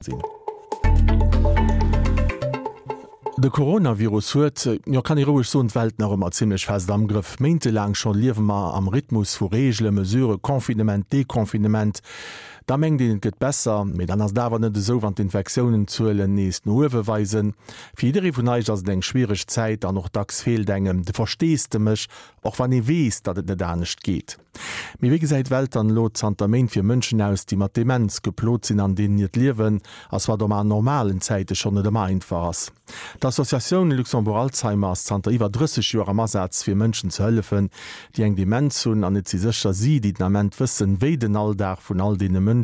Sinn. De Coronavirus huet, jo kann ee roueg soen, d'Welt nach ëmmer zimmlech fest am Grëff. Méintelaang scho liewe mer am Rhythmus vu Reegelen, Mesuren, Confinement, Deconfinement. Da mengt een et gëtt besser, mee dann ass et awer net esou, wann d'Infektiounen-Zuelen nees no uewe weisen. Fir jidderee vun eis ass et eng schwiereg Zäit an och dacks feelt engem de Versteesdemech, och wann ee weess, datt et net anescht geet. Mee wéi gesäit d'Welt dann elo zanter Méint fir Mënschen aus, déi mat Demenz geplot sinn an deenen hiert Liewen ass, wat och an normalen Zäite schonn net ëmmer einfach ass? D'Associatioun Luxembourg Alzheimer ass zanter iwwer 30 Joer am Asaz fir Mënschen ze hëllefen, déi eng Demenz hunn an et si sécher si, déi den Ament wëssen, wéi den Alldag vun all deene Mënschen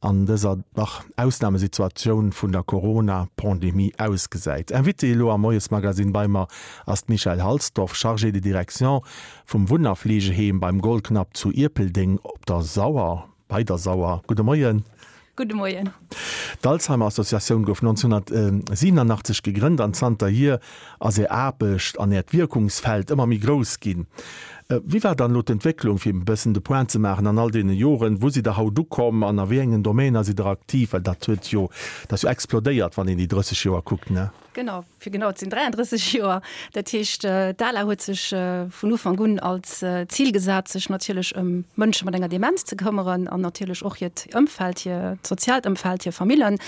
an dëser dach Ausnamesituatioun vun der Corona-Pandemie ausgesäit. Invitée elo am Moiesmagazine bei mer ass d'Michèle Halsdorf, Chargée de direction vum Wunn a Fleegeheem beim Goldknapp zu Ierpeldeng op der Sauer, bei der Sauer. Gudde Moien. Gudde Moien. D'Alzheimer Associatioun gouf 1987 gegrënnt an zanterhier ass är Aarbecht an äert Wierkungsfeld ëmmer méi grouss ginn. Wéi war dann elo d'Entwécklung, fir e bëssen de Point ze maachen, an all deene Joren? Wou sidd Der haut ukomm an a wéi engen Domainer sidd Der aktiv? Well dat huet jo, dat ass jo explodéiert, wann een déi 30 Joer kuckt, ne? Genau, fir genau ze sinn 33 Joer. Dat heescht, d'ALA huet sech vun Ufank un als Zil gesat, sech natierlech ëm Mënsche mat enger Demenz ze këmmeren an natierlech och hiert Ëmfeld, hiert soziaalt Ëmfeld, hir Famillen.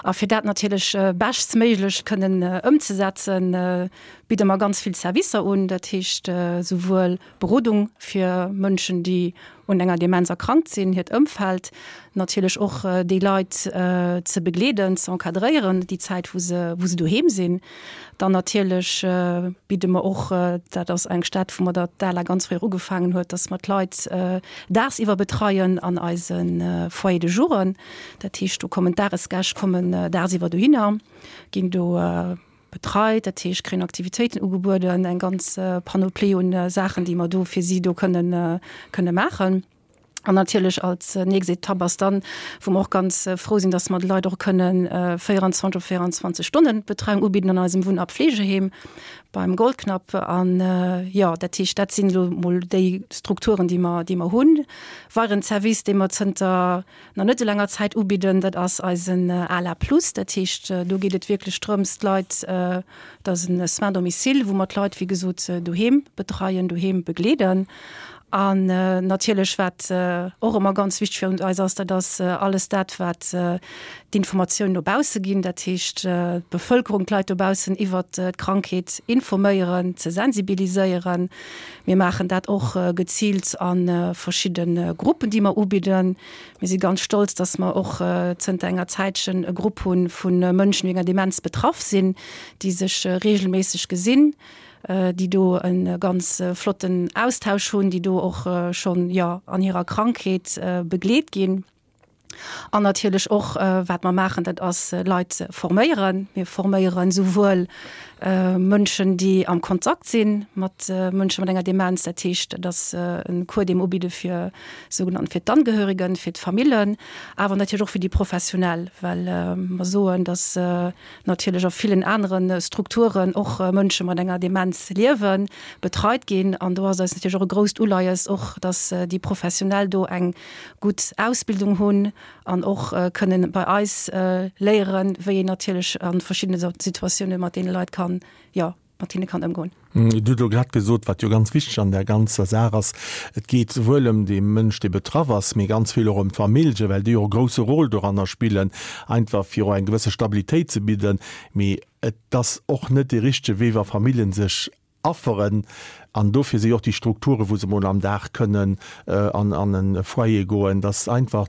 A fir dat natierlech beschtstméiglech kënnen ëmzesetzen, bidde mer ganz vill Servicer un. Dat heescht souwuel Berodung fir Mënschen, déi un enger Demenz erkrankt sinn, hiert Ëmfeld, natierlech och déi Leit ze begleeden, ze encadréieren déi Zäit, wou se, wou se doheem sinn. Dann natierlech bidde mer och, dat ass eng Stad, wou mer der d'ALA ganz fréi och ugefaangen huet, dass mer d'Leit daagsiwwer betreien an eise Foyer de jouren. Dat heescht, do kommen d'Dagesgäscht kommen daagsiwwer dohinner, ginn do betreit, dat heescht kréien Aktivitéiten ugebueden, eng ganz Panoplie un Saachen, déi mer do fir si do kënnen kënne maachen. An natierlech als nächst Etapp ass dann, wou mer och ganz frou sinn, dass mer de Leit och kënnen 24 op 24 Stonnen Betreiung ubidden an eisem Wunn a Pflegeheem beim Goldknapp. An jo, dat heescht, dat sinn elo mol déi Strukturen, déi mer, déi mer hunn. Weideren Service, dee mer zënter nach net esou laanger Zäit ubidden, dat ass eisen ALA Plus. Dat heescht, do geet et wierklech drëms, d'Leit, dat ass e Soins domicile, wou mer d'Leit, wéi gesot, doheem betreien, doheem begleeden. An natierlech, wat och ëmmer ganz wichteg fir eis ass, dat ass alles dat, wat d'Informatioun no bausse ginn, dat heescht d'Bevëlkerung, d'Leit dobaussen iwwert d'Krankheet informéieren, ze sensibiliséieren. Mir maachen dat och geziilt a verschidde Gruppen, déi mer ubidden. Mir si ganz stolz, dass mer och zënter enger Zäitchen e Grupp hu vu Mënschen, déi enger Demenz betraff sinn, déi sech reegelméisseg gesinn, déi do e ganz flotten Austausch hunn, déi do och schonn, jo, an hirer Krankheet begleet ginn. An natierlech och, wat mer maachen, dat ass Leit forméieren. Mir forméieren esouwuel Mënschen, déi am Kontakt si mat Mënsche mat enger Demenz, dat heescht, dat ass e Cours, dee mer ubidde fir sougenannten fir d'Angehörigen, fir d'Famillen, awer natierlech och fir déi Professionell, well mer soen, datt natierlech a villen anere Strukturen och Mënsche mat enger Demenz liewen, betreit ginn. An do ass eis natierlech och e grousst Uleies och, datt déi Professionell do eng gutt Ausbildung hunn an och kënnen bei eis léieren, wéi een natierlech a verschiddene Situatioune mat deene Leit kann, jo, mat hinne kann ëmgoen. Dir hutt elo grad gesot, wat jo ganz wichteg an där ganzer Saach ass, Et geet souwuel ëm dee Mënsch, dee betraff ass, mee ganz vill och ëm d'Famillje, well déi och e grousse Rôle doranner spillen, einfach fir och eng gewësse Stabilitéit ze bidden. Mee et ass och net dee richtege Wee, wa Famillje sech afferen. An dofir si och déi Strukturen, wou se emol am Dag kënnen an e Foyer goen, dass einfach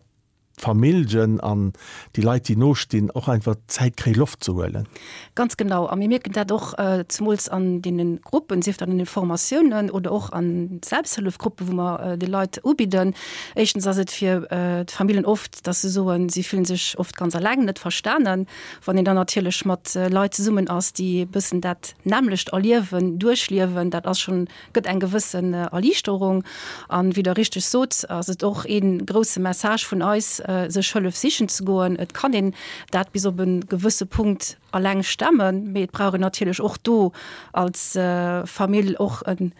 d'Familljen an déi Leit, déi no stinn, och einfach Zäit kréie Loft ze huelen. Ganz genau. A mir mierken dat och zemools an deene Gruppen, sief dat an den Formatiounen oder och an Selbsthëllefgruppen, wou mer de Leit ubidden. Éischtens ass et fir d'Familljen oft, dass se soen, si fillen sech oft ganz alleng, net verstanen. Wann een dann natierlech mat Leit zesummen ass, déi e bëssen dat nämmlecht erliewen, duerchliewen, dat ass schonn, gëtt eng gewëssen Erliichterung. An wéi Der richteg sot, ass et och ee grousse Message vun eis, sech Hëllef sichen ze goen. Et kann een dat bis op e gewësse Punkt alleng stemmen, mee et brauch een natierlech och do als Famill och e.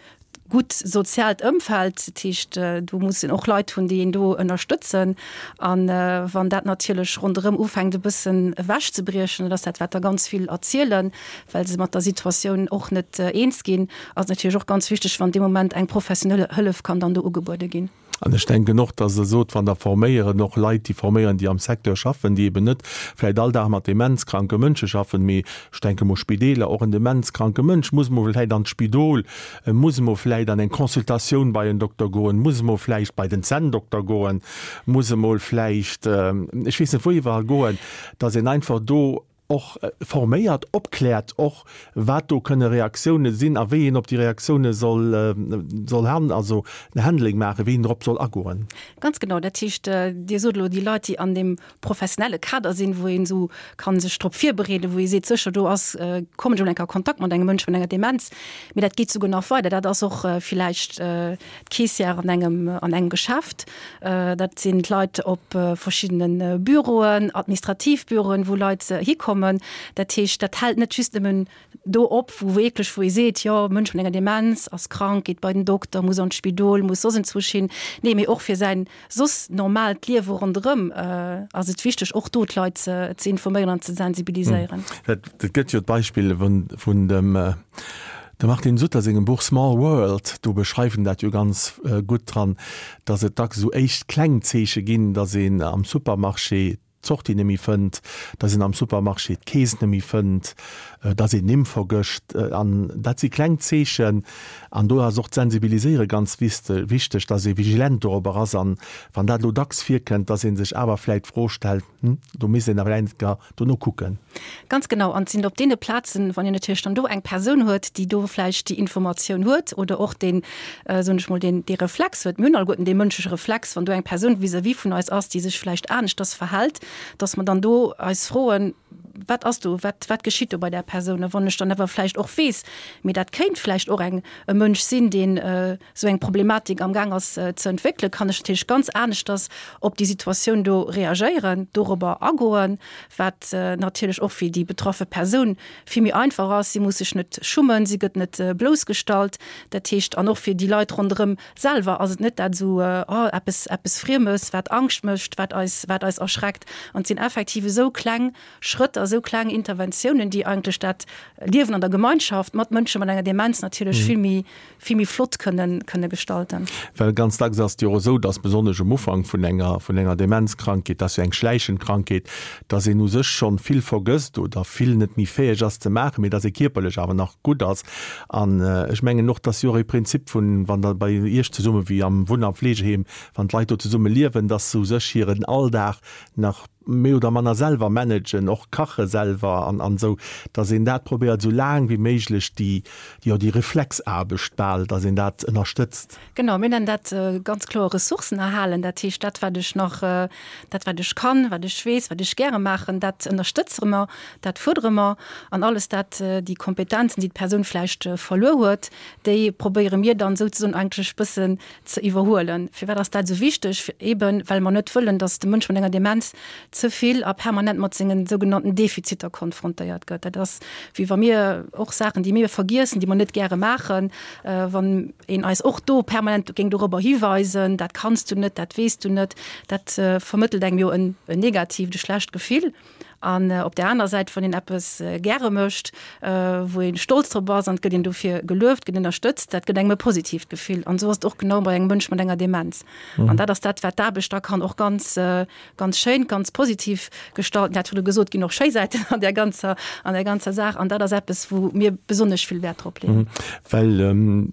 gutt soziaalt Ëmfeld. Dat heescht, do muss een och Leit hunn, déi een do ënnerstëtzen. A wann dat natierlech ronderëm ufänkt e bëssen ewechzebriechen, dat ass dat, wat der ganz vill erzielen, well se mat der Situatioun och net eens ginn, ass et natierlech och ganz wichteg, wann dee Moment eng professionell Hëllef kann dann do ugebuede ginn. An ech denken och, dass Der sot, wann Der forméieren, och Leit, déi forméieren, déi am Secteur schaffen, déi eben net vläicht all Dag mat demenzkranke Mënsche schaffen, mee ech denke mol Spideeler, och en demenzkranke Mënsch muss emol vläicht an d'Spidol, muss emol vläicht an eng Consultatioun bei en Dokter goen, muss emol vläicht bei den Zänndokter goen, muss emol vläicht, ech weess net wou iwwerall goen, dass een einfach do och forméiert, opkläert och, wat do kënne Reaktioune sinn a wéi een op déi Reaktioune soll, soll han, also en Handling maachen, wéi een drop soll agoen. Ganz genau. Dat heescht, Dir sot elo déi Leit, déi an deem professionelle Kader sinn, wou een esou ka sech drop virbereeden, wou ee seet, sécher do ass, kommen ech emol eng Kéier a Kontakt mat engem Mënsch mat enger Demenz. Mee dat geet souguer nach weider. Dat ass och villäicht d'Caissière an engem, an engem Geschäft, dat sinn d'Leit op verschiddene Büroen, administrativ Büroen, wou Leit hikommen. Dat heescht, dat hält net just nëmmen do op, wou wierklech, wou ee seet, jo, Mënsch mat enger Demenz ass krank, geet bei den Dokter, muss an d'Spidol, muss soss enzwousch hin. Nee, mee och fir säin soss normaalt Liewe ronderëm ass et wichteg, och do d'Leit ze informéieren an ze sensibiliséieren. Et gëtt jo d'Beispill vun dem De Martin Sutter sengem Buch Small World, do beschreift en dat jo ganz gutt dran, datt et dacks esou éischt kleng Zeeche ginn, datt een am Supermarché d'Sortie net méi fënnt, datt een am Supermarché d'Keess net méi fënnt, datt een Nimm vergëscht. An dat si kleng Zeechen. An do ass och d'Sensibiliséiere ganz wichteg, datt ee vigilent dorobber ass. An wann dat elo dacks virkënnt, datt ee sech awer vläicht d'Fro stellt, Hm, do misst een awer eng Kéier dono kucken. Ganz genau. An et sinn op deene Plazen, wann een natierlech dann do eng Persoun huet, déi do vläicht déi Informatioun huet oder och deen, soen ech mol, deen, dee Reflex huet, mir hunn alleguerten dee mënschleche Reflex, wann do eng Persoun vis-à-vis vun eis ass, déi sech vläicht aneschters verhält, dass mer dann do eis froen, Wat ass do, wat, wat geschitt do bei där Persoun? A wann ech dann awer vläicht och weess, mee dat kéint vläicht och eng, e Mënsch sinn, deen esou eng Problematik am Gaang ass ze entwéckelen, kann ech natierlech ganz aneschters op déi Situatioun do reagéieren, dorobber agoen, wat natierlech och fir déi betraffe Persoun vill méi einfach ass. Si muss sech net schummen, si gëtt net bloussgestallt. Dat heescht, an och fir déi Leit ronderëm selwer ass et net dat esou, oh, eppes, eppes Friemes, wat Angscht mécht, wat eis, wat eis erschreckt. An et sinn effektiv esou kleng Schrëtt a sou kleng Interventiounen, déi eigentlech dat Liewen an der Gemeinschaft mat Mënsche mat enger Demenz natierlech vill méi, vill méi flott kënnen, kënne gestalten. Well ganz dacks ass et jo och esou, dass besonnesch um Ufank vun enger, vun enger Demenzkrankheet, dat ass jo eng schläichend Krankheet, dass een u sech schonn vill vergësst oder vill net méi fäeg ass ze maachen, mee dass ee kierperlech awer nach gutt ass. An ech mengen och, dass jo och ee Prinzip vun, wann Der bei Iech zesumme wéi am Wunn a Fleegeheem, wann d'Leit do zesumme liewen, dass se u sech hiren Alldag nach méi oder manner selwer managen, och kache selwer an an esou, dass een dat probéiert esou laang wéi méiglech déi, jo déi Reflexaarbecht bal, dass een dat ënnerstëtzt. Genau, mir nennen dat ganz kloer Ressourcen erhalen. Dat heescht, dat wat ech nach, dat wat ech kann, wat ech weess, wat ech gäre maachen, dat ënnerstëtzere mer, dat fuerdere mer. An alles dat, déi Kompetenzen, déi d'Persoun vläicht verluer huet, déi probéiere mir dann souzesoen eigentlech bëssen ze iwwerhuelen. Firwat ass dat esou wichteg? Eben well mer net wëllen, datt de Mënsch mat enger Demenz ze vill a permanent mat sengen sougenannten Defiziter konfrontéiert gëtt. Dat ass wéi wa mir och Saachen, déi mir vergiessen, déi mer net gäre maachen, wann een eis och do permanent géing dorobber hiweisen, dat kanns du net, dat weess du net, dat vermëttelt engem jo en negatiivt, e schlecht Gefill. An op där aner Säit, wann een eppes gäre mécht, wou ee stolz drop ass an et gëtt een dofir gelueft, gëtt ënnerstëtzt, dat gëtt engem e positiivt Gefill. An esou ass et och genau bei engem Mënsch mat enger Demenz. An dat ass dat, wat d'Aarbecht da kann och ganz, ganz schéin, ganz positiv gestalten. Dat huet e gesot, ginn och schéi Säiten an där ganzer, an där ganzer Saach. An dat ass eppes, wou mir besonnesch vill Wäert drop leeën. Well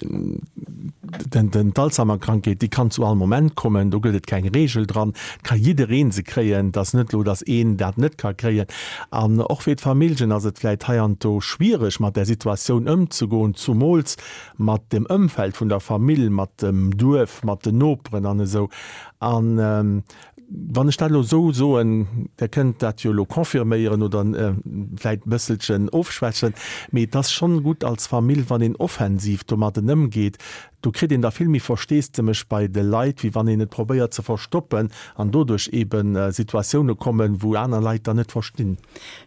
d'Alzheimer-Krankheet, déi kann zu all Moment kommen, do gëtt et keng Reegel dran, et ka jidderee se kréien, et ass net elo, datt een dat net ka kréien. An och fir d'Familljen ass et vläicht heiansdo schwiereg, mat där Situatioun ëmzegoen, zumools mat dem Ëmfeld vun der Famill, mat dem Duerf, mat den Noperen an esou. An Wann ech dat elo esou soen, Der kënnt dat jo elo confirméieren oder vläicht e bësselchen ofschwächen, mee et ass schonn gutt als Famill, wann een offensiv domadden ëmgeet. Do kritt een da vill méi Versteesdemech bei de Leit, wéi wann een et probéiert ze verstoppen an doduerch eebe Situatioune kommen, wou aner Leit dann net verstinn.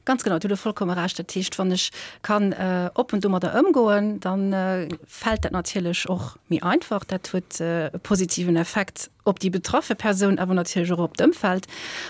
Ganz genau, do hutt Der vollkomme Recht. Dat heescht, wann ech kann oppen domadder ëmgoen, da fält dat natierlech och méi einfach. Dat huet e positiven Effekt op déi betraffe Persoun, awer natierlech och op d'Ëmfeld.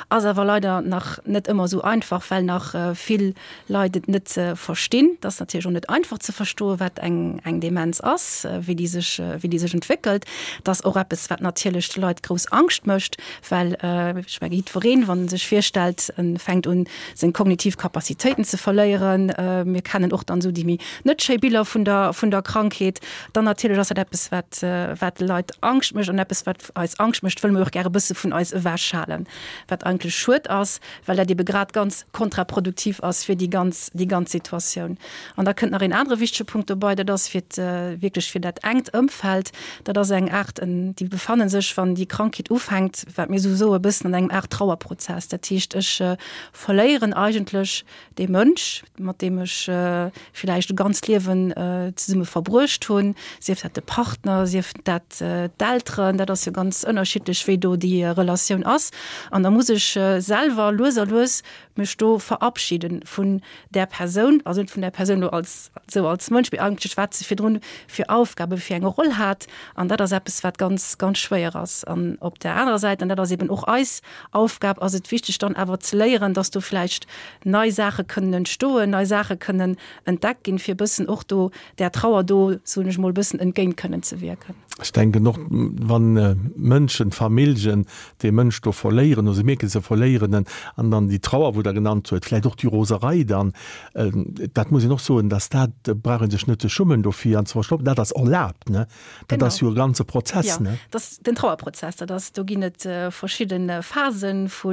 Ass awer leider nach net ëmmer esou einfach, well nach vill Leit et net verstinn. Et ass natierlech och net einfach ze verstoen, wat eng eng Demenz ass, wéi déi sech wéi déi sech entwéckelt. Et ass och eppes, wat natierlech de Leit grouss Angscht mécht, well ech menge jiddwereen, wann en sech virstellt, en fänkt un seng kognitiv Capacitéiten ze verléieren, mir kennen och dann esou déi méi net schéi Biller vun der vun der Krankheet, dann natierlech ass dat eppes, wat wat de Leit Angscht mécht an eppes, wat eis Angscht mécht, wëlle mir och gäre bësse vun eis ewechhalen, wat eigentlech schued ass, well dat ebe grad ganz kontraproduktiv ass fir déi ganz déi ganz Situatioun. An da kënnt nach een anere wichtege Punkt dobei, dat ass fir wierklech fir dat enkt Ëmfeld, dat ass eng Aart, déi befanne sech, wann déi Krankheet ufänkt, wat mir esou soe bëssen an engem Aart Trauerprozess. Dat heescht, ech verléieren eigentlech dee Mënsch, mat deem ech villäicht e ganzt Liewen zesumme verbruecht hunn, sief dat de Partner, sief dat d'Elteren, dat ass jo ganz ënnerschiddlech, wéi do déi Relatioun ass. An da muss ech selwer lues a lues mech do verabschieden vun där Persoun, also net vun där Persoun elo als esou als Mënsch, mee eigentlech wat se virdrun fir Aufgaben, fir eng Roll hat. An dat ass eppes, wat ganz, ganz schwéier ass. An op där anerer Säit, an dat ass eben och eis Aufgab, ass et wichteg dann awer ze léieren, dass do vläicht nei Saache kënnen entstoen, nei Saache kënnen entdeckt ginn, fir e bëssen och do där Trauer do, soen ech mol, e bëssen entgéint kënnen ze wierken. Ech denken och, wann Mënschen, Familljen dee Mënsch do verléieren oder se mierken, se verléieren en, an dann déi Trauer, wou Der genannt huet, vläicht och déi Roserei dann, dat muss een och soen, dass dat, brauch ee sech net ze schummen dofir an ze verstoppen, dat ass erlaabt, ne? Dat ass jo e ganze Prozess, ne? Jo, dat ass den Trauerprozess. Dat ass, do ginn et verschidde Phasen vu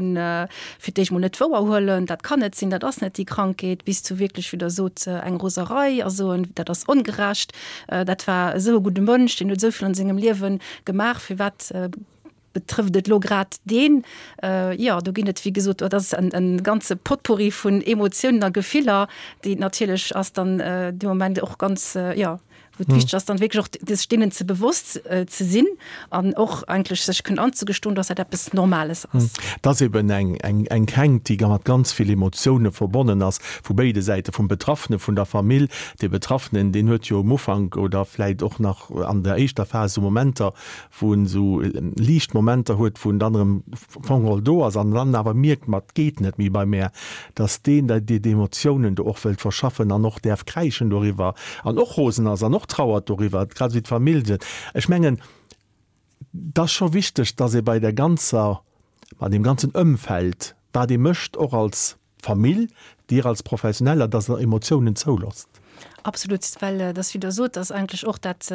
fir d'éischt mol net wouerhuelen, dat kann net sinn, dat ass net déi Krankheet, bis zu wierklech, wéi Der sot, eng Roserei a soen, dat ass ongerecht, dat war esou e gudde Mënsch, deen huet esou vill an sengem Liewe gemaach, firwat Betrëfft et lo grad deen? Jo, do ginn et, wéi gesot, dat ass en ganze Potpourri vun Emotiounen a Gefiller, déi natierlech ass dann dee Moment och ganz, jo, wou et wichteg ass, dann wierklech och sech deenen ze bewosst ze sinn an och eigentlech sech kënnen anzegestoen, dass dat eppes Normales ass. Et ass eben eng, eng, eng Kränkt, déi mat ganz vill Emotioune verbonnen ass, vu béide Säite, vum Betraffene, vun der Famill. Dee Betraffenen, deen huet jo um Ufank oder vläit och nach an der éischter Phas esou Momenter, wou en esou liicht Momenter huet, wou en dann erëm am Fong do ass an dann awer mierkt, ma et geet net méi bei mär, dass deen da déi Emotiounen do och wëllt verschaffen an och däerf kräischen doriwwer an och rosen ass an och trauert doriwwer, grad esou wéi d'Famill. Ech mengen, et ass scho wichteg, dass ee bei där ganzer, bei deem ganzen Ëmfeld, wat ee mécht, och als Famill, Dir als Professioneller, dass Der Emotiounen zouloosst. Absolut, well et ass, wéi Der sot, dass eigentlech och dat,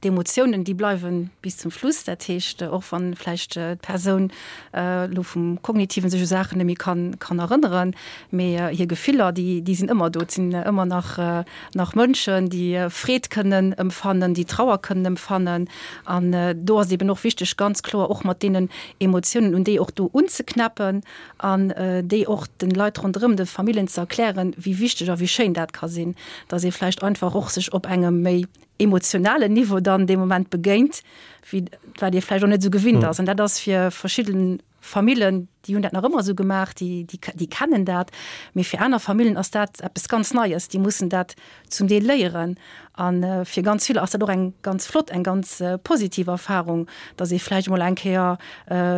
D'Emotiounen, déi bleiwe bis zum Schluss. Dat heescht, och wann vläicht d'Persoun elo vum Kognitiven sech u Saachen net méi kann kann erënneren, mee hir Gefiller, déi déi sinn ëmmer do. Et sinn ëmmer nach nach Mënschen, déi Freed kënnen ëmfannen, déi Trauer kënnen ëmfannen. An do ass et eben och wichteg, ganz kloer och mat deenen Emotiounen, un déi och do unzeknäppen an déi och de Leit ronderëm, de Familljen ze erklären, wéi wichteg a wéi schéin dat ka sinn, dass ee vläicht einfach och sech op engem méi emotionalen Niveau dann dee Moment begéint, wéi wat ee vläicht och net esou gewinnt ass. An dat ass fir verschidde Famillen, déi hunn dat nach ëmmer esou gemaach, déi, déi, déi kennen dat. Mee fir aner Famillen ass dat eppes ganz Neies, déi mussen dat zum Deel léieren. A fir ganz vill ass dat och eng ganz flott, eng ganz positiv Erfahrung, datt ee vläicht emol eng Kéier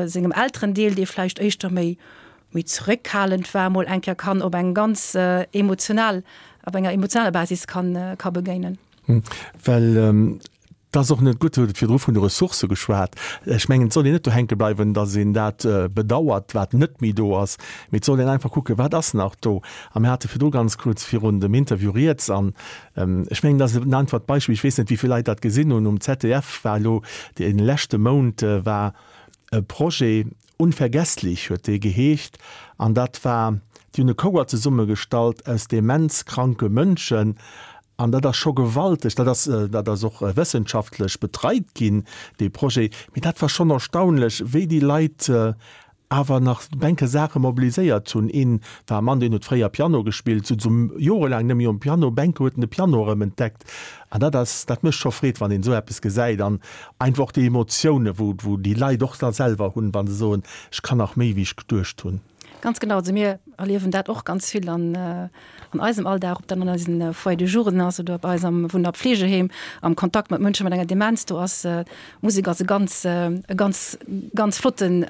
sengem Elterendeel, dee vläicht éischter méi, méi zeréckhalend war, mol eng Kéier kann op eng ganz emotional, op enger emotionaler Basis kann, ka begéinen. Well et ass och net gutt, Dir hutt virdru vun de Ressourcë geschwat. Ech mengen, et soll een net do hänke bleiwen, datt een dat bedauert, wat net méi do ass, mee et soll een einfach kucken, wat ass nach do. A mir hate virdru ganz kuerz virun dem Interview rieds an ech mengen, dat ass en einfacht Beispill, ech weess net, wéi vill Leit dat gesinn hunn, um ZDF war elo dee leschte Mount war e Projet, Unvergesslich huet dee geheescht an dat war, déi hunn e Chouer zesummegestallt aus demenzkranke Mënschen an dat ass scho gewalteg, dat ass, dat ass och wëssenschaftlech betreit ginn, dee Projet, mee dat war schonn erstaunlech, wéi déi Leit. awer nach enke Saache mobiliséiert hunn. Een war e Mann, deen huet fréier Piano gespillt, sot esou jorelaang net méi um Piano, Bänke huet en de Piano erëm entdeckt. An dat ass, dat mécht scho Freed, wann een esou eppes gesäit an einfach och déi Emotiounen, wou, wou déi Leit och da selwer hunn, wa se soen, ech kann nach méi wéi ech geduecht hunn. Ganz genau. Also mir erliewen dat och ganz vill an, an eisem Alldag, ob dat an eisen Foyer de jouren ass oder bei eis am Wunn a Pflegeheem, am Kontakt mat Mënsche mat enger Demenz. Do ass Musek ass e ganz, e ganz, ganz flotten,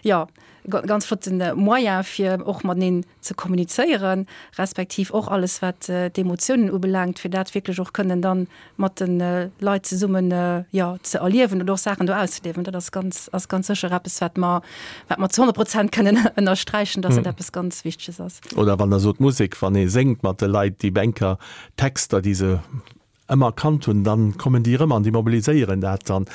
jo, ganz flotten Moyen fir och mateneen ze kommunizéieren, respektiv och alles wat d'Emotiounen ubelaangt, fir dat wierklech och kënnen dann mat de Leit zesummen, jo, ze erliewen oder och Saachen do auszeliewen. Dat ass ganz, ass ganz sécher eppes, wat mer, wat mer zu 100 Prozent kënnen ënnersträichen, dass dat eppes ganz Wichteges ass. Oder wann Der sot Musek, wann ee séngt mat de Leit, déi Bänker, Texter, déi se ëmmer kannt hunn, dann kommen déi erëm an déi mobiliséieren dat dann.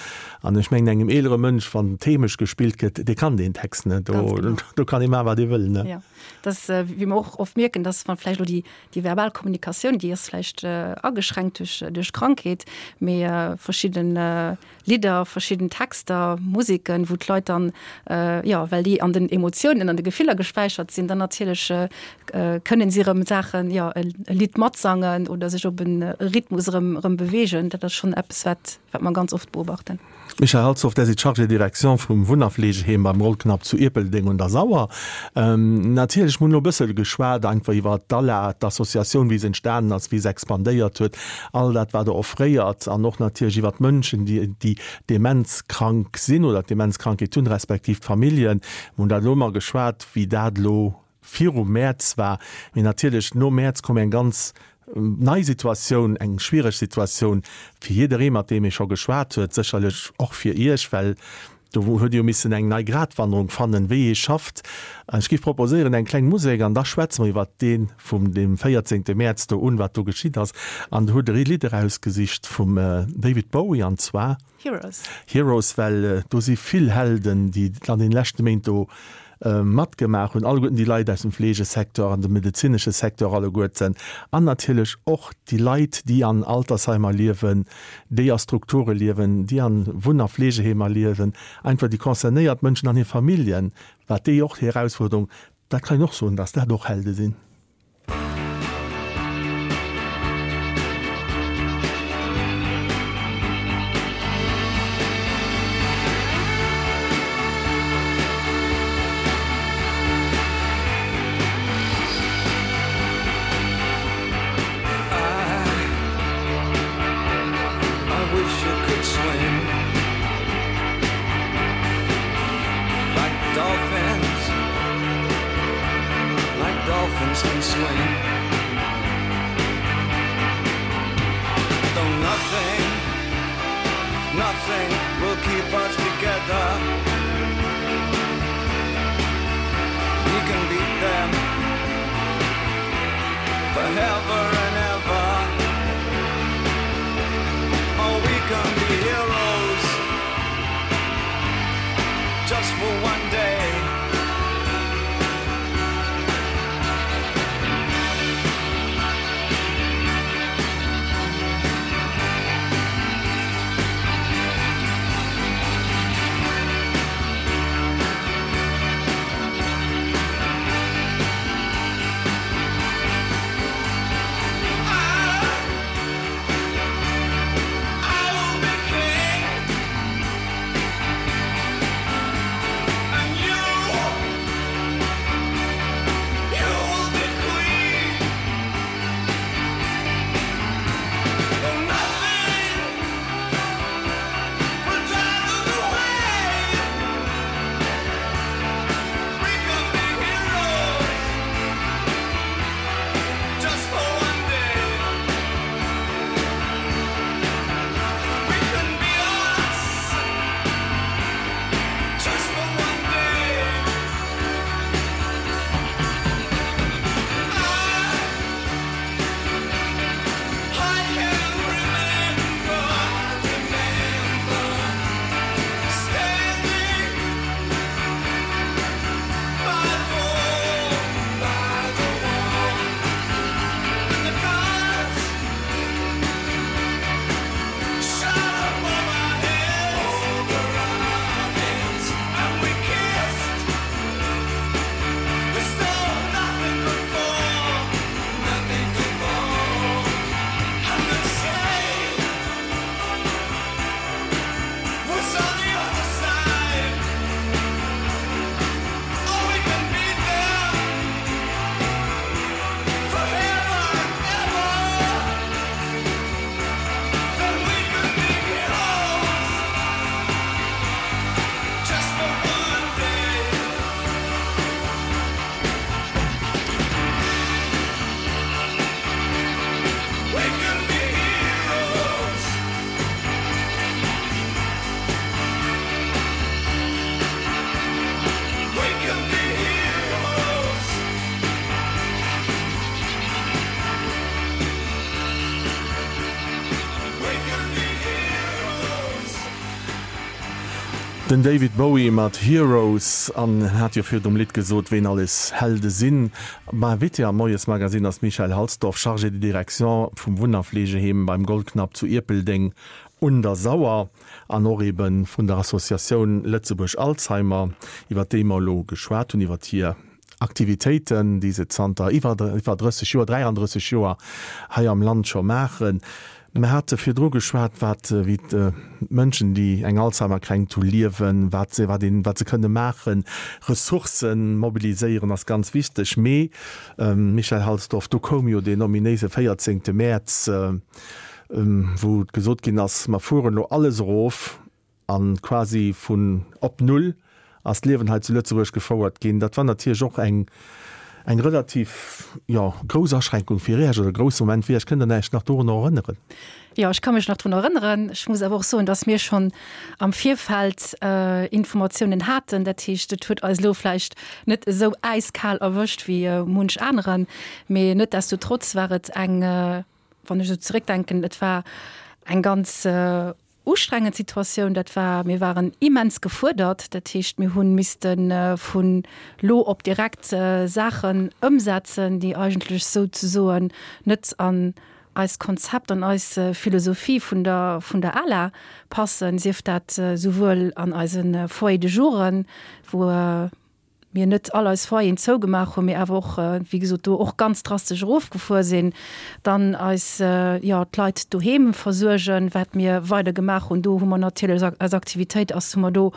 An ech mengen engem eelere Mënsch, wann Themesch gespillt gëtt, dee kann deen Text net, do, do kann ee maachen, wat ee wëll, ne? Jo, dat ass, wéi mer och oft mierken, dass wann vläicht elo déi, déi verbal Kommunikatioun, déi ass vläicht ageschränkt duerch, duerch d'Krankheet, mee verschidden Lidder, verschidden Texter, Museken, wou d'Leit dann, jo, well déi an den Emotiounen, an de Gefiller gespäichert sinn, dann natierlech kënnen si erëm Saachen, jo, e Lidd matsangen oder sech op e Rhythmus erëm, erëm beweegen. Dat ass schonn eppes, wat, wat mer ganz oft beobachten. Michèle Halsdorf, Der sidd Chargée de direction vum Wunn a Fleegeheem beim Rollknapp zu Ierpeldeng un der Sauer. Natierlech, mir hunn elo e bëssel geschwat einfach iwwer d'ALA, d'Associatioun, wéi se entstanen ass, wéi se expandéiert huet, all dat wat Der offréiert an och natierlech iwwer d'Mënschen, déi déi demenzkrank sinn oder d'Demenzkrankheet hunn, respektiv d'Familljen. Mir hunn dat elo ëmmer geschwat, wéi dat elo virum Mäerz war. Mee natierlech nom Mäerz koum eng ganz nei Situatioun, eng schwiereg Situatioun fir jidderee mat deem ee scho geschwat huet, sécherlech och fir Iech, well Do huet ee jo missen eng nei Gratwanderung fannen, wéi ee schafft. Ech géif proposéieren, eng kleng Musek an da schwätze mer iwwert dee vum deem 14. Mäerz do un, wat do geschitt ass. An do hutt Der ee Lidd erausgesicht vum David Bowie, an zwar. Heroes. Heroes, well do si vill Helden, déi an deene leschte Méint do matgemaach hunn, alleguerten déi Leit aus dem Fleegesecteur an dem medezinesche Secteur alleguerten an natierlech och déi Leit, déi an Altersheimer liewen, déi a Strukture liewen, déi a Wunn a Fleegeheemer liewen, einfach déi concernéiert Mënschen an hir Familljen, wat déi och déi Erausfuerderung, dat kann een och soen, dass dat och Helde sinn. Den David Bowie mat Heroes an en hat jo virdrum Lidd gesot, ween alles Helde sinn. Invité am Moiesmagazine ass d'Michèle Halsdorf, Chargée de direction vum Wunn a Fleegeheem beim Goldknapp zu Ierpeldeng un der Sauer an och ebe vun der Associatioun Lëtzebuerg Alzheimer, iwwer déi mer elo geschwat hunn, iwwer hir Aktivitéiten, déi se zanter iwwer 30 Joer, 33 Joer hei am Land scho maachen. Mir hate virdru geschwat, wat, wéi d'Mënschen, déi eng Alzheimer-Kränkt hu, liewen, wat se, wat een, wat se kënne maachen. Ressourcë mobiliséieren ass ganz wichteg. Mee, Michèle Halsdorf, do koum jo deen ominéise 14. Mäerz, wou gesot ginn ass, mer fueren elo alles erof, A quasi vun op Null ass d'Liewen hei zu Lëtzebuerg gefouert ginn. Dat war natierlech och eng, eng relativ, jo, grouss Aschränkung fir Iech oder e grousse Moment fir Iech. Kënnt Der Iech nach dorunner erënneren? Jo, ech ka mech nach drun erënneren. Ech muss awer och soen, dass mir schonn am Virfeld Informatiounen haten. Dat heescht, et huet eis elo vläicht net esou äiskal erwëscht wéi munch aneren. Mee netdestotrotz war et eng, wann ech esou zeréckdenken, et war eng ganz ustrengend Situatioun. Dat war, mir waren immens gefuerdert. Dat heescht, mir hu misste vun lo op direkt Saachen ëmsetzen, déi eigentlech souzesoen net an eist Konzept, an eis Philosophie vun der, vun der ALA passen, sief dat souwuel an eise Foyers de jouren, wou, mir net all eis Foyeren zougemaach hunn, mee awer och, wéi gesot, do och ganz drastesch erofgefuer sinn, dann eis, jo, d'Leit doheem versuergen, wat mir weider gemaach hunn. Do hu mer natierlech eis Aktivitéit ass hu mer do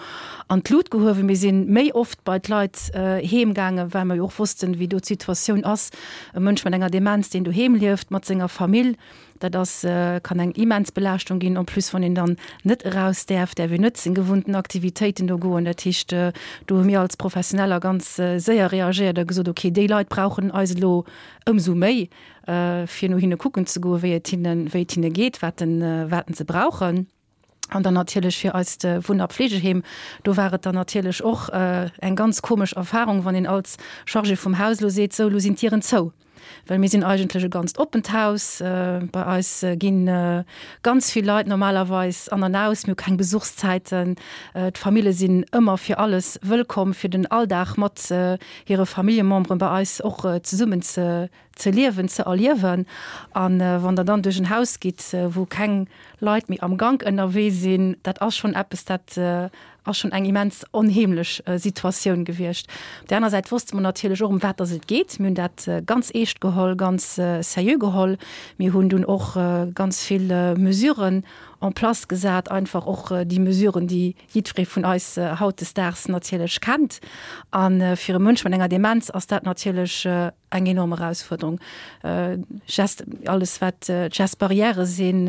an d'Lut gehuewen. Mir si méi oft bei d'Leit heem gaangen, well mer jo och wossten, wéi do d'Situatioun ass. E Mënsch mat enger Demenz, deen doheem lieft mat senger Famill, Dat ass, kann eng immens Belaaschtung ginn, en plus wann een dann net eraus däerf, däerf een net seng gewunnten Aktivitéiten do goen. Dat heescht, do hu mir als Professioneller ganz séier reagéiert a gesot, okay, déi Leit brauchen eis elo ëmsou méi, fir no hinne kucken ze goen, wéi et hinnen, wéi et hinne geet, wat wat se brauchen. An dann natierlech fir eist Wunn a Pflegeheem, do war et dann natierlech och eng ganz komesch Erfahrung, wann een als Chargé vum Haus elo seet, sou, elo sinn d'Dieren zou. Well mir sinn eigentlech e ganzt oppent Haus. Bei eis gi ganz vill Leit normalerweis an an aus. Mir hu keng Besuchszäiten. D'Famille sinn ëmmer fir alles wëllkomm, fir den Alldag mat hire Familljememberen bei eis och zesummen ze ze liewen, ze erliewen. A wann Der dann duerch en Haus gitt, wou keng Leit méi am Gank ënnerwee sinn, dat ass schonn eppes, dat ass schonn eng immens onheemlech Situatioun gewiescht. Op där aner Säit wosste mer natierlech och, ëm wat dass et geet. Mir hunn dat ganz eescht geholl, ganz seriö geholl. Mir hunn dunn och ganz vill Mesuren en place gesat, einfach och déi Mesuren, déi jiddweree vun eis hautdesdaags natierlech kennt. A fir e Mënsch mat enger Demenz ass dat natierlech eng enorm Erausfuerderung. Gest, alles wat d'Gestes barrières sinn,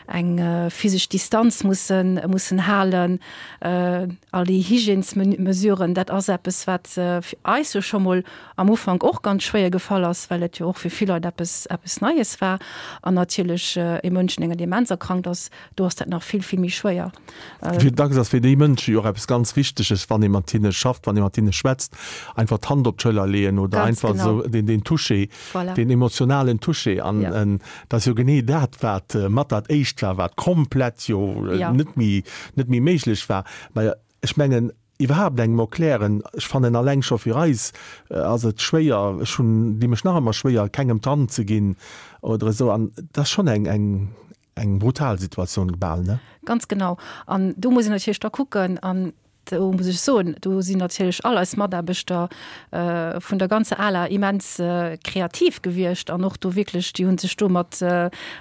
eng physesch Distanz mussen, mussen halen, all déi Hygiènesmesuren, dat ass eppes, wat fir eis jo scho mol am Ufank och ganz schwéier gefall ass, well et jo och fir vill Leit eppes, eppes Neies war. An natierlech e Mënsch, deen enger Demenz erkrankt ass, do ass dat nach vill, vill méi schwéier. Wéi dacks ass fir déi Mënsche jo och eppes ganz Wichteges, wann ee mat hinne schafft, wann ee mat hinne schwätzt, einfach d'Hand op d'Schëller leeën oder Ganz einfach genau. esou deen, deen Toucher, Voilà. deen emotionalen Toucher. An Ja. dat ass jo genee dat, wat mat dat Éischt war, wat komplett jo Ja. net méi, net méi méiglech war. Mä ech mengen, iwwerhaapt engem erklären, ech fannen alleng scho fir eis ass et schwéier, ech hunn, di mech nach ëmmer schwéier, kengem d'Hand ze ginn oder esou. An dat ass schonn eng, eng, Eng brutal Situatioun bal, ne? Ganz genau. An do muss een natierlech da kucken, an do muss ech soen, do sinn natierlech all eis Mataarbechter vun der ganzer ALA immens kreativ gewiescht an och do wierklech, déi hu sech do mat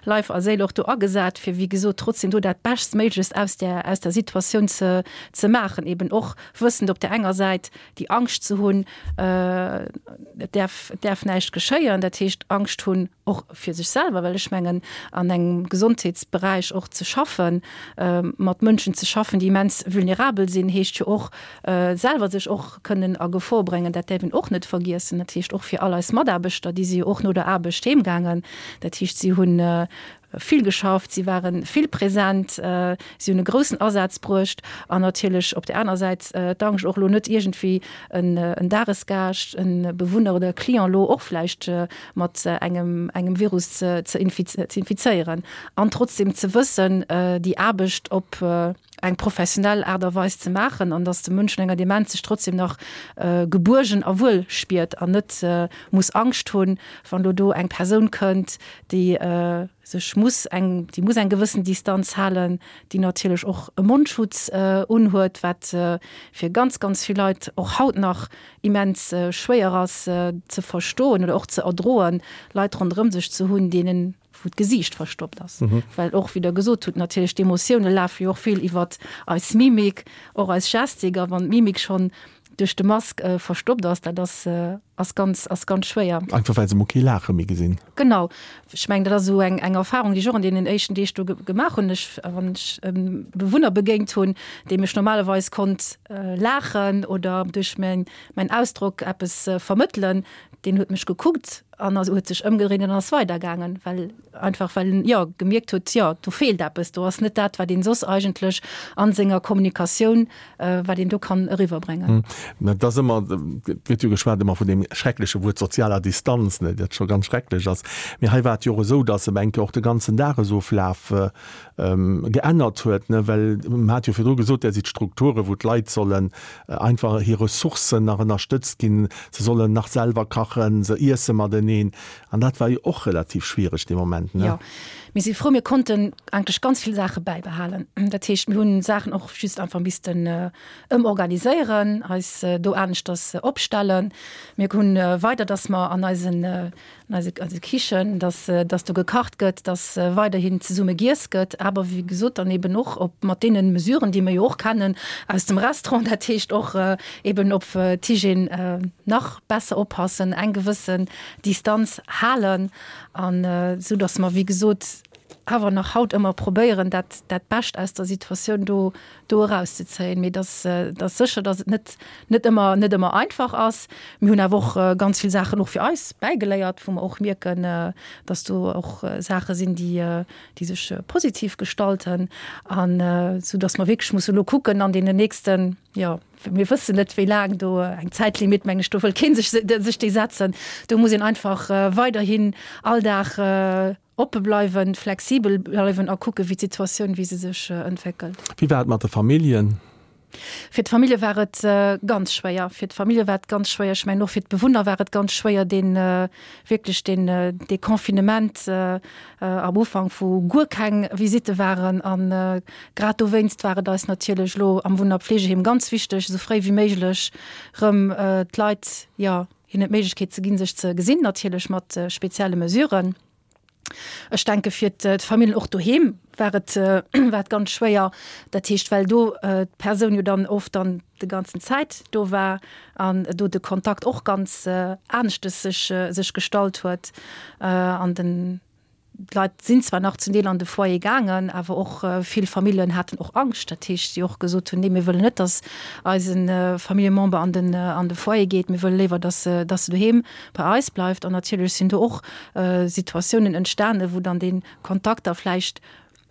Leif a Séil och do agesat, fir wéi gesot trotzdem do dat Beschtméiglechst aus där, aus der Situatioun ze, ze maachen, eben och wëssend op där enger Säit déi Angscht ze hunn, et däerf, et däerf näischt geschéien, dat heescht Angscht hunn, och fir sech selwer, well ech mengen, an engem Gesondheetsberäich och ze schaffen, mat Mënschen ze schaffen, déi immens vulnerabel sinn, heescht jo och, selwer sech och kënnen a Gefor bréngen. Dat däerf een och net vergiessen. Dat heescht och fir all eis Mataarbechter, déi si jo och no der Aarbecht heemgaangen. Dat heescht, si hunn vill geschafft, si ware vill present, si hunn e groussen Asaz bruecht an natierlech op där aner Säit d'Angscht och elo net iergendwéi en Dagesgaascht, e Bewunner oder e Client elo och vläicht mat engem engem Virus ze ze infizéieren an trotzdem ze wëssen, déi Aarbecht op. eng professionell Aart a Weis ze maachen an dass de Mënsch un enger Demenz sech trotzdem nach gebuergen a wuel spiert an net muss Angscht hunn, wann elo do eng Persoun kënnt, déi sech muss eng, déi muss eng gewëssen Distanz halen, déi natierlech och e Mondschutz unhuet, wat fir ganz, ganz vill Leit och haut nach immens schwéier ass ze verstoen oder och ze erdroen, Leit ronderëm sech ze hunn, deenen, wou d'Gesiicht verstoppt ass. Well och, wéi Der gesot hutt, natierlech d'Emotioune lafe jo och vill iwwert eis Mimik, och eis Gestik. A wann d'Mimik schonn duerch de Mask verstoppt ass, dat ass, ass ganz, ass ganz schwéier. Einfach well se mol kee Laache méi gesinn. Genau. Ech mengen, dat ass esou eng, eng Erfahrung, déi ech och an deenen éischten Deeg do gemaach hunn. Ech, wann ech e Bewunner begéint hunn, deem ech normalerweis konnt laachen oder duerch mäin, mäin Ausdrock eppes vermëttelen, deen huet mech gekuckt an ass, huet sech ëmgedréint an ass weidergaangen, well einfach well en, jo, gemierkt huet, jo, do feelt eppes, do ass net dat, wat een soss eigentlech a senger Kommunikatioun, wat een do kann eriwwerbréngen. Mä et ass ëmmer, et gëtt jo geschwat ëmmer vun deem schreckleche Wuert sozialer Distanz, ne, dat scho ganz schrecklech ass. Mee hei war et jo och esou, datt ebe eng Kéier och de ganzen Dagesoflaf geännert huet, ne, well mer hat jo virdru gesot, där si d'Strukture wou d'Leit sollen einfach hir Ressourcen nach ënnerstëtzt ginn, se sollen nach selwer kachen, se iesse mateneen an dat war jo och relativ schwiereg dee Moment, ne? Jo, mir si frou, mir konnten eigentlech ganz vill Saache bäibehalen. Dat heescht, mir hunn Saachen och just einfach missten ëmorganiséieren, eis do aneschters opstellen. Mir hunn weider, dass mer an eisen an eise, eise Kichen, dass, dass do gekacht gëtt, dass weiderhin zesumme giess gëtt, awer wéi gesot dann eben och op, mat deene Mesuren, déi mir jo och kennen aus dem Restaurant, dat heescht och eben op d'Hygiène nach besser oppassen, eng gewëssen Distanz halen an esou dass mer, wéi gesot, awer nach haut ëmmer probéieren, dat, dat Bescht aus der Situatioun do do erauszezéien. Mee dass dass sécher, dass et net net ëmmer net ëmmer einfach ass. Mir hunn awer och ganz vill Saachen och fir eis bäigeléiert, wou mer och mierken, dass do och Saache sinn, déi déi sech positiv gestalten an esou dass mer wierklech musse elo kucken an deenen nächsten, jo, mir wëssen net wéi laang do eng Zäitlimit, meng ech, do wëll kee sech sech déi setzen. Do muss een einfach weiderhin all Dag Oppe bleiwen, flexibel bleiwen a kucke wéi d'Situatioun, wéi se sech entwéckelt. Wéi war et mat de Familljen? Fir d'Famillje war et ganz schwéier. Fir d'Famillje war et ganz schwéier. Ech mengen och fir d'Bewunner war et ganz schwéier, dee wierklech deen dee Confinement am Ufank, wou guer keng Visitte waren. A grad dowéinst war et eis natierlech elo am Wunn a Pflegeheem ganz wichteg, esou fréi wéi méiglech erëm d'Leit, jo, hinnen d'Méiglechkeet ze ginn, sech ze gesinn, natierlech mat spezielle Mesuren. Ech denke fir d'Familljen och doheem war et war et ganz schwéier. Dat heescht, well do d'Persoun jo dann oft dann de ganzen Zäit do war an do de Kontakt och ganz aneschtes sech sech gestallt huet an den d'Leit sinn zwar nach zum Deel an de Foyer gaangen, awer och vill Familljen haten och Angscht. Dat heescht, déi och gesot hunn, nee mir wëllen net, datt eise Familljemember an den an de Foyer geet, mir wëlle léiwer, datt datt se doheem bei eis bleift. An natierlech sinn do och Situatiounen entstanen, wou dann dee Kontakt da vläicht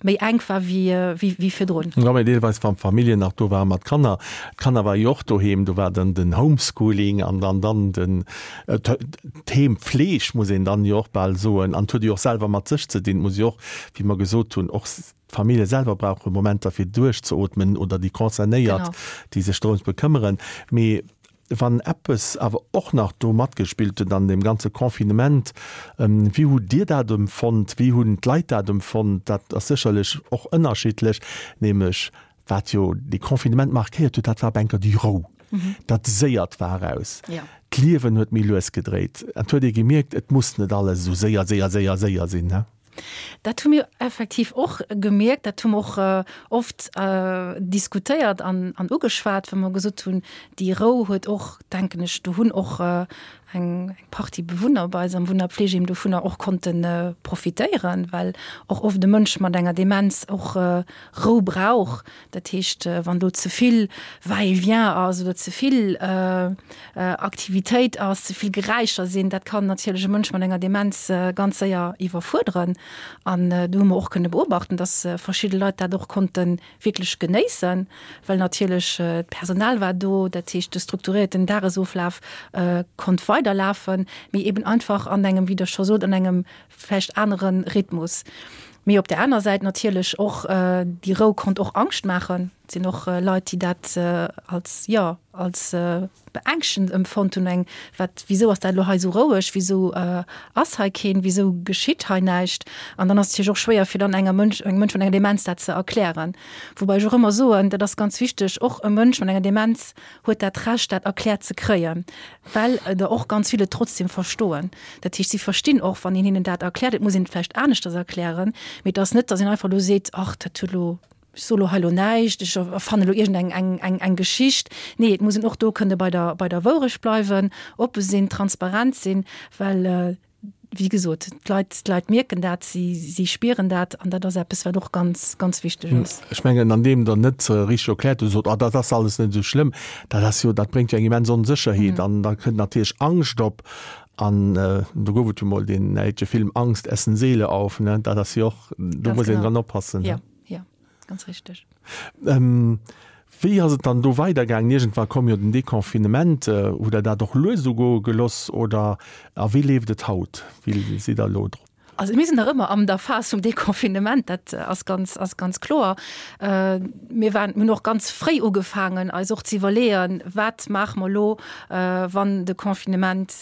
méi enk war wéi virdrun. Jo, mee deelweis wann d'Familljen nach do waren mat Kanner, d'Kanner ware jo och doheem, do war dann den Homeschooling an dann dann den d'Heempfleeg, muss een dann jo och bal soen. An et huet jo och selwer mat sech ze dinn, et muss jo och, wéi mer gesot hunn, och d'Famillje selwer brauche Momenter fir duerchzeootmen oder déi Concernéiert, déi sech drëms bekëmmeren. Mee Wann eppes awer och nach do matgespillt huet an deem ganze Confinement, wéi hutt Dir dat empfonnt, wéi hunn d'Leit dat empfonnt, dat ass sécherlech och ënnerschiddlech, nämlech wat jo dee Confinement markéiert huet, dat war op enker déi Rou, dat Séiert war eraus, d'Liewen huet méi lues gedréit, et huet ee gemierkt, et muss net alles esou séier, séier, séier, séier sinn. Dat hu mir effektiv och gemierkt, dat hu mer och oft diskutéiert an ugeschwat, wou mer gesot hunn, déi Rou huet och, denken ech, do hunn och eng Partie Bewunner bei eis am Wunn a Pflegeheem dovunner och konnte profitéieren, well och oft e Mënsch mat enger Demenz och Rou brauch. Dat heescht, wann do ze vill Va-et-vient ass oder ze vill Aktivitéit ass, ze vill Geräischer sinn, dat kann natierlech e Mënsch mat enger Demenz ganz séier iwwerfuerderen. An do hu mer och kënne beobachten, dass verschidde Leit dat och konnte wierklech genéissen, well natierlech d'Personal war do, dat heescht de strukturierten Dagesoflaf konnt weiderlafen, mee eben einfach an engem, wéi Der scho sot, an engem vläicht anere Rhythmus. Mee op der aner Säit natierlech och, déi Rou konnt och Angscht maachen. Et sinn och Leit, déi dat als, jo, als beängschtend empfonnt hunn, eng, wat, wisou ass dat elo hei esou roueg, wisou ass hei keen, wisou geschitt hei näischt? An dann ass et natierlech och schwéier, fir dann enger Mënsch, engem Mënsch mat enger Demenz dat ze erklären. Woubäi ech och ëmmer soen, dat ass ganz wichteg, och e Mënsch mat enger Demenz huet dat Recht, dat erkläert ze kréien, well der och ganz vill et trotzdem verstoen. Dat heescht, si verstinn och, wann een hinnen dat erkläert. Et muss een et vläicht aneschters erklären, mee et ass net, datt een einfach elo seet, Ach, dat huet elo, ech soe lo hei elo näischt, ech erfanne elo iergend eng, eng, eng Geschicht. Nee, et muss een och do kënne bei der, bei der Wourecht bleiwen, oppe sinn, transparent sinn, well, wéi gesot, d'Leit, d'Leit mierken dat, si, si spieren dat an dat ass eppes, wat och ganz, ganz wichteg ass. Ech mengen, an deem Der net richteg erkläert hutt, sot, Oh, dat ass alles net esou schlëmm, dat ass jo, dat bréngt jo eng immens Onsécherheet an da kënnt natierlech Angscht op. An do gouf et jo mol deen däitsche Film Angst essen Seele auf, ne? Dat ass jo och, do muss een dran oppassen. Jo, jo, ganz richteg. Wéi ass et dann do weidergaangen? Iergendwa koum jo den Deconfinement. Hutt Der dat och lues ugoe geloss oder a wéi leeft et haut? Wéi sidd Der elo drop? Also mir sinn nach ëmmer an der Phas vum Deconfinement, dat ass ganz, ass ganz kloer. Mir waren, mir hunn och ganz fréi ugefaangen, eis och ze iwwerleeën, wat maache mer elo, wann de Confinement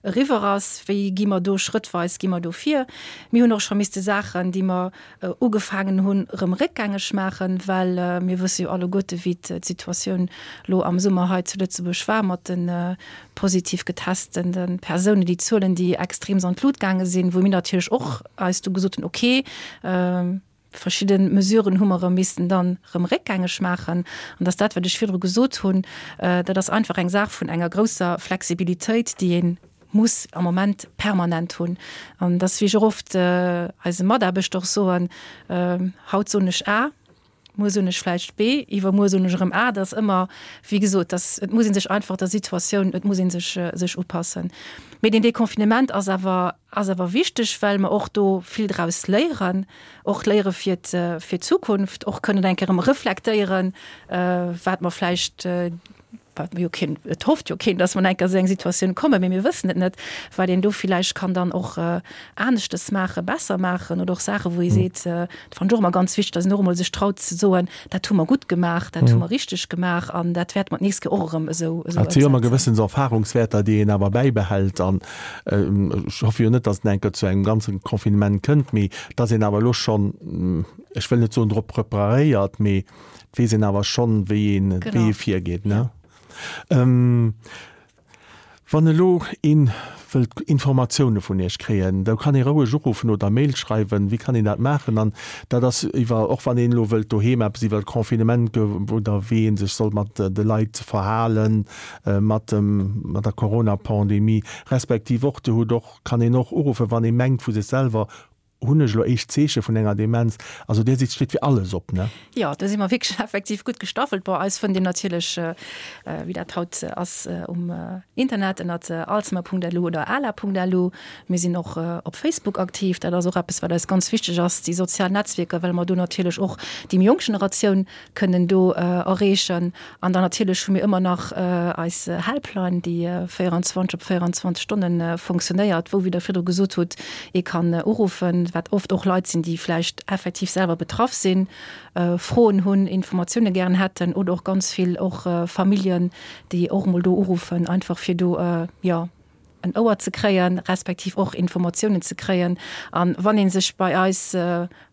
eriwwer ass, wéi gi mer do schrëttweis gi mer do vir. Mir hunn och scho misste Saachen, déi mer ugefaangen hunn, erëm réckgängeg maachen, well mir wësse jo alleguerte wéi d'Situatioun elo am Summer hei zu Lëtzebuerg war mat de positiv getestene Persounen, déi Zuelen, déi extreems an d'Lut gaange sinn, wou mir natierlech och eis du gesot hunn, okay, verschidde Mesuren hu mer erëm missten dann erëm réckgängeg maachen. An dass dat, wat ech virdru gesot hunn, dat ass einfach eng Saach vun enger grousser Flexibilitéit, déi ee muss am Moment permanent hunn. An dass, wéi ech och oft eise Mataarbechter och soen, haut soen ech A, muer soen ech vläicht B, iwwermuer soen ech erëm A. Dat ass ëmmer, wéi gesot, dass, et muss ee sech einfach der Situatioun, et muss ee sech, sech upassen. Mee deen Deconfinement ass awer, ass awer wichteg, well mer och do vill draus léieren, och léiere fir fir d'Zukunft, och kënnen eng Kéier erëm reflektéieren, wat mer vläicht, wat jo keen, et hofft jo keen, dass mer eng Kéier esou eng Situatioun kommen, mee mir wëssen et net, wat een do villäicht kann dann och aneschtes maachen, besser maachen oder och Saachen, wou ee seet, dat fannen ech och ëmmer ganz wichteg, dass een och emol sech traut ze soen, dat hu mer gutt gemaach, dat hu mer richteg gemaach an dat wäerte mer d'nächst Kéier och erëm esou esou Et si jo ëmmer gewëssen Erfahrungswäerter, déi een awer bäibehält an ech hoffe jo net, dass et eng Kéier zu engem ganze Confinement kënnt, mee dass een awer elo schonn, ech wëll net soen drop preparéiert, mee Et weess een awer schonn, wéi een, wéi ee virgeet, ne? Wann elo ee wëllt Informatioune vun Iech kréien, da kann ee roueg uruffen oder Mail schreiwen. Wéi kann een dat maachen? An dat ass iwwer, och wann een elo wëllt doheem eppes iwwer d'Confinement oder wéi ee sech soll mat de Leit verhalen, mat dem, mat der Corona-Pandemie, respektiv och, Dir hutt och, kann een och uruffen, wann ee mengt vu sech selwer, Hunn ech elo éischt Zeeche vun enger Demenz? Also Dir sidd steet fir alles op, ne? Jo, do si mer wierklech effektiv gutt gestaffelt. Bon, eis fënnt een natierlech, wéi dat haut ass, um Internet ënnert alzheimer.lu oder ala.lu. Mir sinn och op Facebook aktiv. Dat ass och eppes, wat eis ganz wichteg ass, déi sozial Netzwierker, well mer do natierlech och déi méi jonk Generatioun kënnen do erreechen. An dann natierlech hu mir ëmmer nach eis Helpline, déi 24 op 24 Stonne funktionéiert, wou, wéi Der virdru gesot hutt, ee kann uruffen, wat oft och Leit sinn, déi vläicht effektiv selwer betraff sinn, Froen hunn, Informatioune gären hätten oder och ganz vill och Familljen, déi och emol do uruffen, einfach fir do, jo, en Ouer ze kréien, respektiv och Informatiounen ze kréien. A wann ee sech bei eis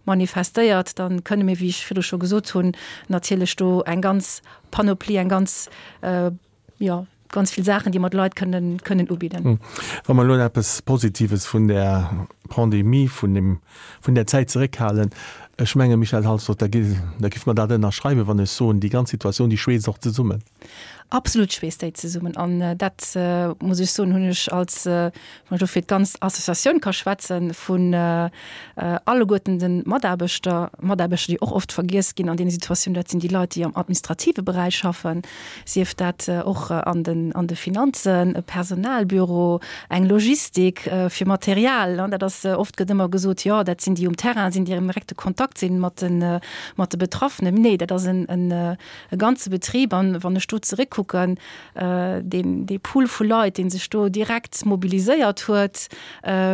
manifestéiert, da kënne mir, wéi ech virdru scho gesot hunn, natierlech do eng ganz Panoplie, eng ganz, jo, ganz vill Saachen, déi mer de Leit kënnen, kënnen ubidden. Wa mer elo eppes Positives vun där Pandemie, vun deem, vun där Zäit zeréckhalen, ech menge Michèle Halsdorf, da gi, da giff mer dat ënnerschreiwen, wann ech soen, déi ganz Situatioun, déi schweesst och zesummen. Absolut schweesst déi zesummen an dat, muss ech soen, hunn ech als, wann ech elo fir d'ganz Associatioun ka schwätzen, vun alleguerten de Mataarbechter, Mataarbechter, déi och oft vergiess ginn an deene Situatiounen, dat sinn déi Leit, déi am administrative Beräich schaffen, sief dat och an den, an de Finanzen, e Personalbüro, eng Logistik fir Material. Dat ass, oft gëtt ëmmer gesot, jo, dat sinn déi um Terrain sinn, déi am direkte Kontakt sinn mat de, mat de Betraffenen. Nee, dat ass en, e ganze Betrib. An wann ech do zeréckkucken. kucken, deen, dee Pool vu Leit, dee sech do direkt mobiliséiert huet,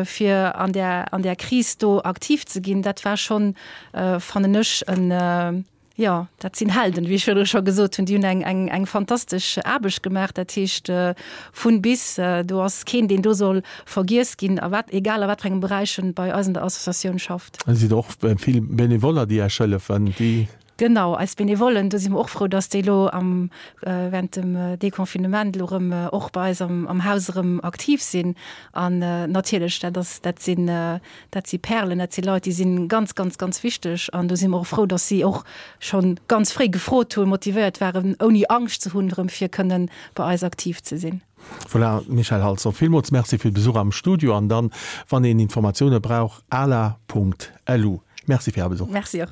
fir an där, an där Kris do aktiv ze ginn, dat war schonn, fannen ech, en, Jo, dat sinn Helden, wéi ech virdru scho gesot hunn. Déi hunn eng, eng, eng fantastesch Aarbecht gemaach. Dat heescht, vun bis. Do ass keen, deen do soll vergiess ginn, a wat, egal a wat fir engem Beräich en bei eis an der Associatioun schafft. Et sinn och vill Benevoller, déi Iech hëllefen, déi. Genau, eis Benevollen, do si mer och frou, dass déi elo am, während dem Deconfinement elo erëm och bei eis am, am Haus erëm aktiv sinn. An natierlech, dat ass, dat sinn, Dat si Perlen, dat si Leit, déi si ganz, ganz, ganz wichteg. An do si mer och frou, dass si och scho ganz fréi gefrot hunn, motivéiert waren, ouni Angscht ze hunn, erëm fir kënnen bei eis aktiv ze sinn. Voilà, Michèle Halsdorf, villmools Merci fir de Besuch am Studio. An dann, wann een Informatioune brauch, ala.lu. Merci fir Är Besuch. Merci och.